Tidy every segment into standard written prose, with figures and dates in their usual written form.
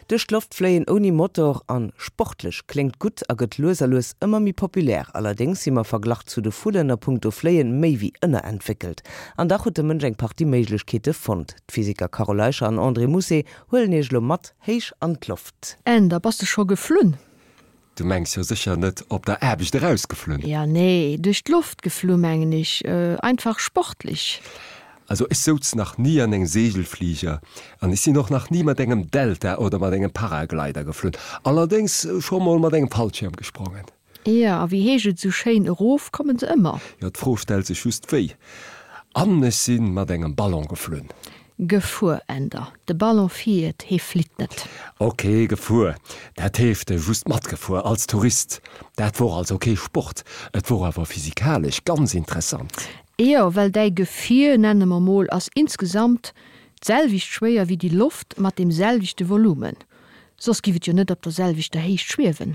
Duerch d'Loft fléien ouni Motor an sportlech kléngt gutt a gëtt lues a lues ëmmer méi populär. Allerdéngs si mer verglach zu de Vullen a punkto Fléien méi wéi ënnerentwéckelt. An dach huet de Mënsch eng Partie Méiglechkeete fonnt. D'Physiker Carole Eicher an André Mousset huelen iech elo mat héich an d'Loft. Änder, bass de scho geflunn? Du mengs jo sécher net op der Aarbecht erausgeflunn? Ja, nee, duerch d'Loft geflu mengen ech, einfach sportlich. Also ech souz nach ni an engem Segelflieger an ech sinn och nach ni mat engem Delta oder mat engem Paraglider geflunn, allerdéngs scho mol mat engem Fallschierm gesprongen. Jo, a wéi heescht et esou schéin, erof kommen se ëmmer. Jo, d'Fro stellt sech just wéi. An ech sinn mat engem Ballon geflunn. Gefuer, Änder. De Ballon fiert, hee flitt net. Ok, gefuer, dat heescht just matgefuer, als Tourist. Dat wor also kee Sport, et wor awer physikalesch ganz interessant. Jo, well däi Gefier, nenne mer mol, ass insgesamt d'selwecht schwéier wéi déi Loft mat deem selwechte Volumen. Soss giff et jo net op der selwechter Héicht schwiewen.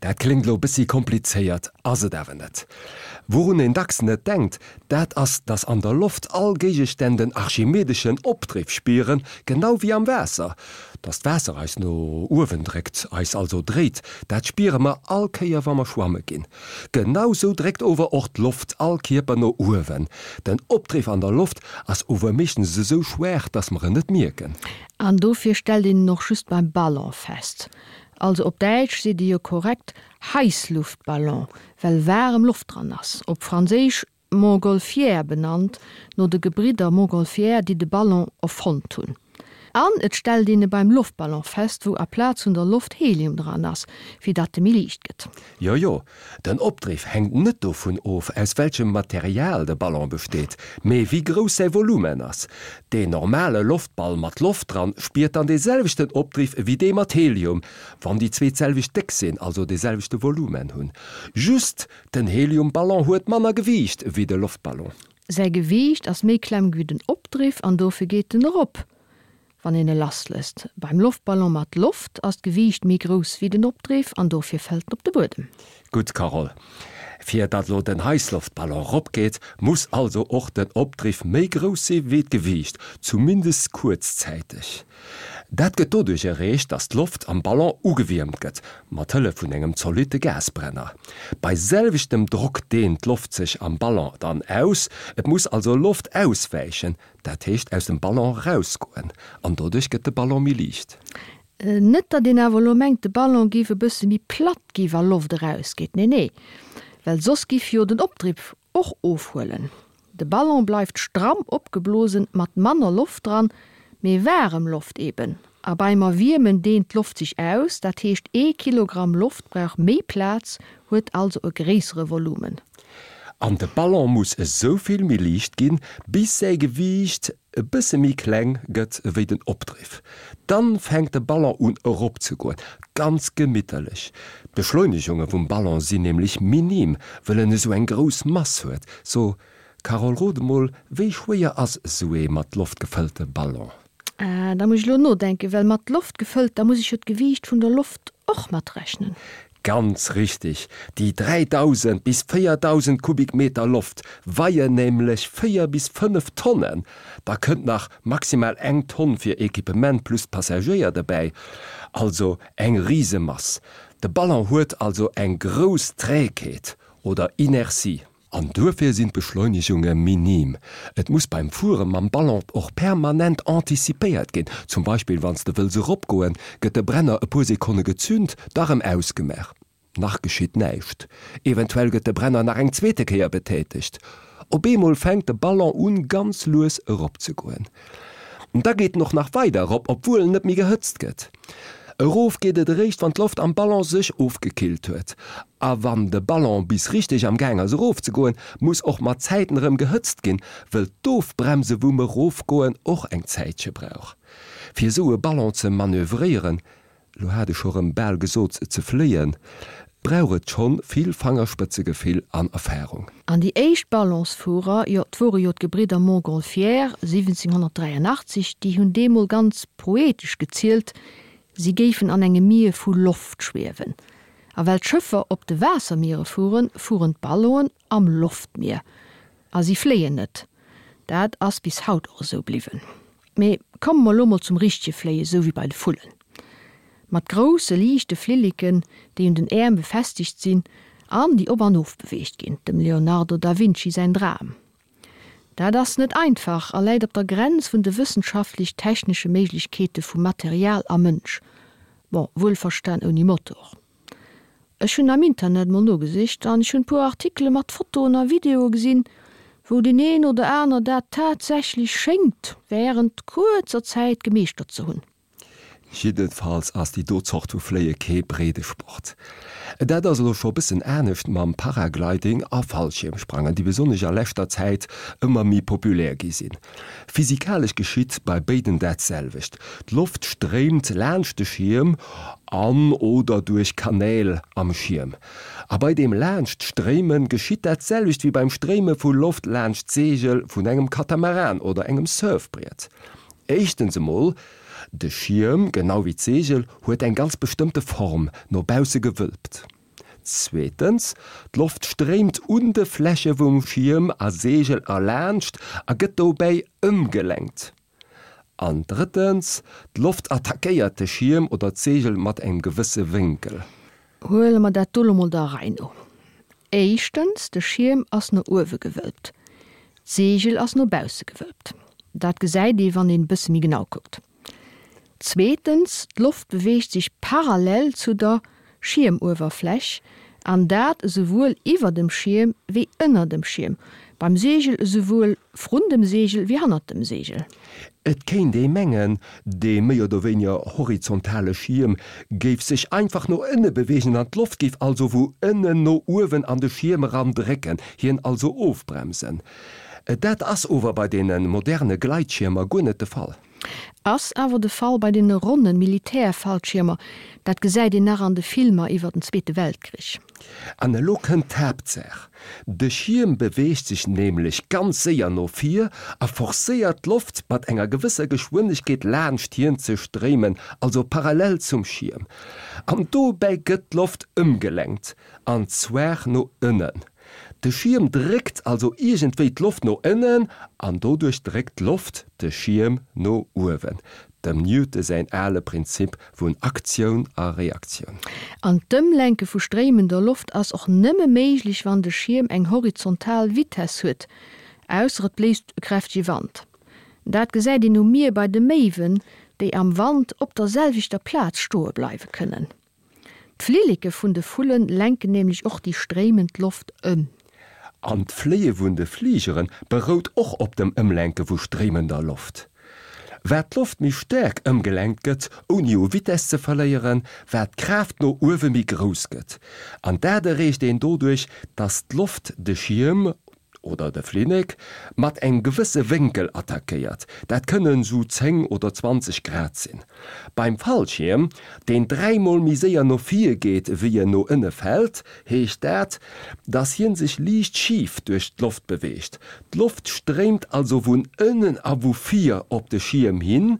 Dat kléngt lo bëssi komplizéiert, ass et awer net. Wourun een dacks net denkt, dat ass, dass an der Loft all Géigestänn den archimedeschen Opdriff spieren, genau wéi am Waasser. Dass d'Waasser eis no uewen dréckt, eis also dréit, dat spiere mer all Kéier wa mer schwamme ginn. Genau sou dréckt ower och d'Loft all Kierper no uewen. Den Opdriff an der Loft ass ower meeschtens esou schwaach, dass mer en net mierken. An dofir stellt een en och just beim Ballon fest. Also op Däitsch seet ee jo korrekt Heissluftballon, well waarem Loft dran ass. Op Franséisch Montgolfière benannt, no de Gebridder Montgolfière, déi de Ballon erfonnt hunn. An et stellt een e beim Loftballon fest, wou aplaz vun der Loft Helium dran ass, fir datt e méi liicht gëtt. Jo, jo, den Opdriff hänkt net dovun of, aus welchem Material de Ballon besteet, mee wéi grouss säi Volumen ass. Deen normale Loftball mat Loft dran spiert dann dee selwechten Opdriff ewéi dee mat Helium, wann déi zwee d'selwecht déck sinn, also dee selwechte Volumen hunn. Just den Heliumballon huet manner Gewiicht ewéi de Loftballon. Säi Gewiicht ass méi kleng ewéi den Opdriff an dofir geet en erop. Wann een e lasslësst. Beim Loftballon mat Loft ass d'Gewiicht méi grouss wéi den Opdriff an dofir fält en op de Buedem. Gutt Carole. Fir datt lo den Heissloftballon rop geet, muss also och den Opdriff méi grouss si wéi d'Gewiicht, zumindest kuerzzäiteg. Dat gëtt doduerch erreecht, datt d'Loft am Ballon ugewiermt gëtt, mat Hëllef vun engem zolitte Gasbrenner. Bei selwechtem Drock dehnt d'Loft sech am Ballon dann aus, et muss also Loft auswäichen, Dat heescht aus dem Ballon rausgoen, an doduerch gëtt de Ballon méi liicht. Net datt een awer elo mengt de Ballon géif e bësse méi platt gi wa Loft erausgeet, nee nee, well soss giff jo den Opdriff och ofhuelen. De Ballon bleift stramm opgeblosen mat manner Loft dran, mee waarem Loft eben. A beim Erwiermen dehnt d'Loft sech aus, dat heescht ee Kilogramm Loft brauch méi Plaz, huet also e gréissere Volumen. An de Ballon muss esou vill méi liicht ginn, bis säi Gewiicht e bësse méi kleng gëtt ewéi den Opdriff. Dann fänkt de Ballon un erop ze goen, ganz gemitterlech. D'Beschleunegunge vum Ballon sinn nämlech minim, wëll en esou eng grouss Mass huet. So, Carole, rot emol, wéi schwéier ass esou ee mat Loft gefëllte Ballon? Ah, da muss ech elo nodenken, well mat Loft gefëllt, da muss ech jo d'Gewiicht vun der Loft och matrechnen. Ganz richtig, déi 3.000 bis 4.000 Kubikmeter Loft weien nämlech 4 bis 5 Tonnen. Da kënnt nach maximal eng Tonn fir Equipement plus Passagéier dobäi, also eng Risemass. De Ballon huet also eng grouss Trägheet oder Inertie. An duerfir sinn d'Beschleunegunge minim. Et muss beim Fuere mam Ballon och permanent anticipéiert ginn. Zum Beispill wann s de wëlls eropgoen, gëtt de Brenner e puer Sekonne gezünt, da rëm ausgemaach. Nach geschitt näischt. Eventuell gëtt de Brenner nach eng zweete Kéier betätegt. Op eemol fänkt de Ballon un ganz lues eropzegoen. Da geet en och nach weider erop, obwuel en net méi gehëtzt gëtt. Erof geet et eréischt, wann d'Loft am Ballon sech ofgekillt huet. A wann de Ballon bis richteg am Gaang ass erofzegoen, muss och mat Zäiten erëm gehëtzt ginn, wëll d'Ofbremse vum Erofgoen och eng Zäitche brauch. Fir esou e Ballon ze manövréieren, lo hat ech scho rëm bal gesot ze fléien, brauch et schonn vill Fangerspëtzegefill an Erfarung. An déi éischt Ballonsfuerer, jo, 't wore jo d'Gebridder Montgolfière, 1783, déi hunn deemol ganz poetesch gezielt, si géifen an engem Mier vu Loft schwiewen. A well d'Schëffer op de Waassermiere fueren, fueren d'Ballonen am Loftmier. A si fléien net. Dat ass bis haut och esou bliwwen. Mee komme mer elo mol zum richtege Fléien, esou wéi bei de Vullen. Mat grousse liichte Flilleken, déi un den Äerm befestegt sinn an déi op an of beweegt ginn, dem Leonardo da Vinci säin Dram. Dat ass net einfach a läit op der Grenz vun de wëssenschaftlech-technesche Méiglechkeete vu Material a Mënsch, bon, wuelverstan ouni Motor. Ech hunn am Internet mol nogesicht an ech hunn puer Artikele mat Fotoen a Videoe gesinn, wou deen een oder aner dat tatsächlech schéngt wärend kuerzer Zäit gemeeschtert ze hunn. Jiddefalls ass déi do Zort vu Fléie kee Breedesport. Dat ass elo scho bëssen anescht mam Paragliding a Fallschiermsprangen, déi besonnesch a leschter Zäit ëmmer méi populär gi sinn. Physikalesch geschitt bei béiden dat selwecht, D'Loft stréimt laanscht de Schierm an oder duerch Kanäl am Schierm. A bei deem laanscht Stréime geschitt dat selwecht wéi beim Stréime vu Loft laanscht d'Seegel vun engem Katamaran oder engem Surfbriet. Éischtens emol, de Schierm, genau wéi d'Seegel, huet eng ganz bestëmmte Form, no bausse gewölbt. Zweetens, d'Loft stréimt un de Fläche vum Schierm a Seegel erlaanscht a gëtt dobäi ëmgelenkt. An drëttens, d'Loft attackéiert de Schierm oder d'Seegel mat engem gewësse Wénkel. Huele mer dat do lo mol der Rei no. Éischtens, de Schierm ass no uewe gewölbt, d'Seegel ass no bausse gewölbt. Dat gesäit ee wann een e bësse méi genau kuckt. Zweetens, d'Loft beweegt sech parallel zu der Schiermuewerfläch, an dat esouwuel iwwer dem Schierm wéi ënner dem Schierm, beim Seegel esouwuel vrun dem Seegel wéi hannert dem Seegel. Et kéint ee mengen, dee méi oder wéiniger horizontale Schierm géif sech einfach no ënne beweegen an d'Loft géif also vu ënnen no uewen an de Schierm eran drécken, hien also ofbremsen. Dat ass ower bei deene moderne Gleitschiermer guer net de Fall. Ass awer de Fall bei deene ronne Militärfallschiermer, dat gesäit een nach an de Filmer iwwer den Zweete Weltkrich. An elo kënnt d'Haaptsaach, De Schierm beweegt sech nämlech ganz séier no vir a forcéiert d'Loft mat enger gewësser Geschwindegkeet laanscht hien ze stréimen, also parallel zum Schierm. An dobäi gëtt d'Loft ëmgelenkt, an zwar no ënnen. De Schierm dréckt also iergendwéi d'Loft no ënnen an doduerch dréckt d'Loft de Schierm no uewen. Dem Newton säin ale Prinzip vun Aktioun a Reaktioun. An d'Ëmlenke vu stréimender Loft ass och nëmme méiglech wann de Schierm eng horizontal Vitess huet, ausser et bléist e kräftege Wand. Dat gesäit een um Mier bei de Méiwen, déi am Wand op der selwechter Plaz stoe bleiwe kënnen. D'Flilleke vun de Vulle lenken nämlech och déi stréimend Loft ëm. An d'Fléie vun de Fligere berout och op dem Ëmlenke vu stréimender Loft. Wat d'Loft méi staark ëmgelenkt gëtt, ouni u Vitess ze verléieren, wat d'Kraaft no uewe méi grouss gëtt. An dat erreecht een doduerch, dass d'Loft de Schierm oder de Flillek mat engem gewësse Wénkel attackéiert, dat kënnen sou 10 oder 20 Grad sinn. Beim Fallschierm, deen dräimol méi séier no vir geet wéi en no ënne fält, heescht dat, dass hien sech liicht schif duerch d'Loft beweegt. D'Loft stréimt also vun ënnen a vu vir op de Schierm hin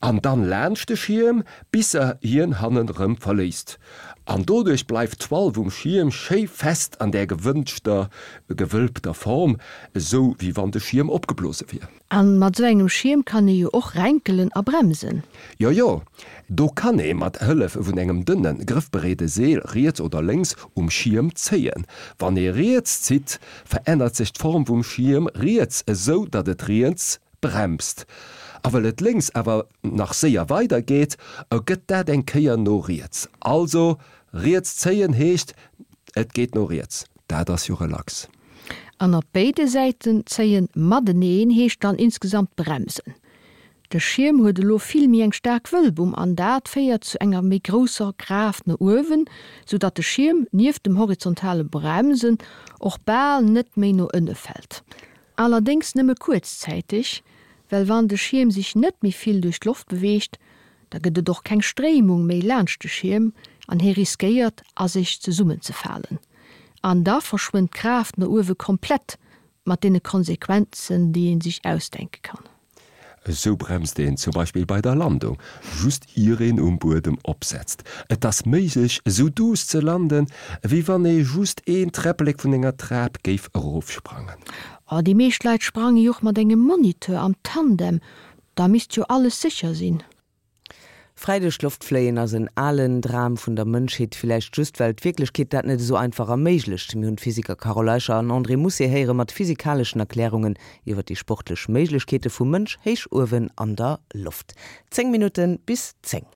An dann laanscht de Schierm, bis se hien hannen rëm verléisst. An doduerch bleift d'Toile vum Schierm schéi fest an där gewënschter gewölbter Form, esou wéi wann de Schierm opgeblose wier. An mat esou engem Schierm kann ee jo och renkelen a bremsen. Jo jo, do kann ee mat Hëllef vun engem dënne grëffbereede Seel riets oder lénks um Schierm zéien. Wann ee riets zitt, verännert sech d'Form vum Schierm riets, esou datt et riets bremst. A well et lénks awer nach séier weider geet, ergëtt dat eng Kéier no riets. Also, riets zéien heescht, et geet no riets. Dat ass jo relax. An op béide Säiten zéien mateneen heescht dann insgesamt bremsen. De Schierm huet elo vill méi eng staark Wëlbung an dat féiert zu enger méi grousser Kraaft no uewen, sou datt de Schierm nieft dem horizontale Bremsen och bal net méi no ënne fält. Allerdéngs nëmme kuerzzäiteg, well wann de Schierm sech net méi vill duerch d'Loft beweegt, da gëtt et och keng Stréimung méi laanscht de Schierm an hie riskéiert a sech zesummenzefalen. An da verschwënnt d'Kraaft no uewe komplett, mat deene Konsequenzen, déi ee sech ausdenke kann. Esou bremst een zum Beispill bei der Landung, just ier een um Buedem opsetzt. Et ass méiglech esou duuss ze landen, ewéi wann ee just een Träpplek vun enger Trap géif erofsprangen. Oh, déi meescht Leit sprange jo och mat engem Moniteur am Tandem, da misst jo alles sécher sinn. Fräi duerch d'Loft fléien ass en alen Dram vun der Mënschheet, villäicht just well d'Wierklechkeet dat net esou einfach erméiglecht. Mir hunn d'Physiker Carole Eicher an André Mousset héiere mat physikaleschen Erklärungen iwwer déi sportlech Méiglechkeete vum Mënsch héich uewen an der Loft. 10 Minutte bis 10.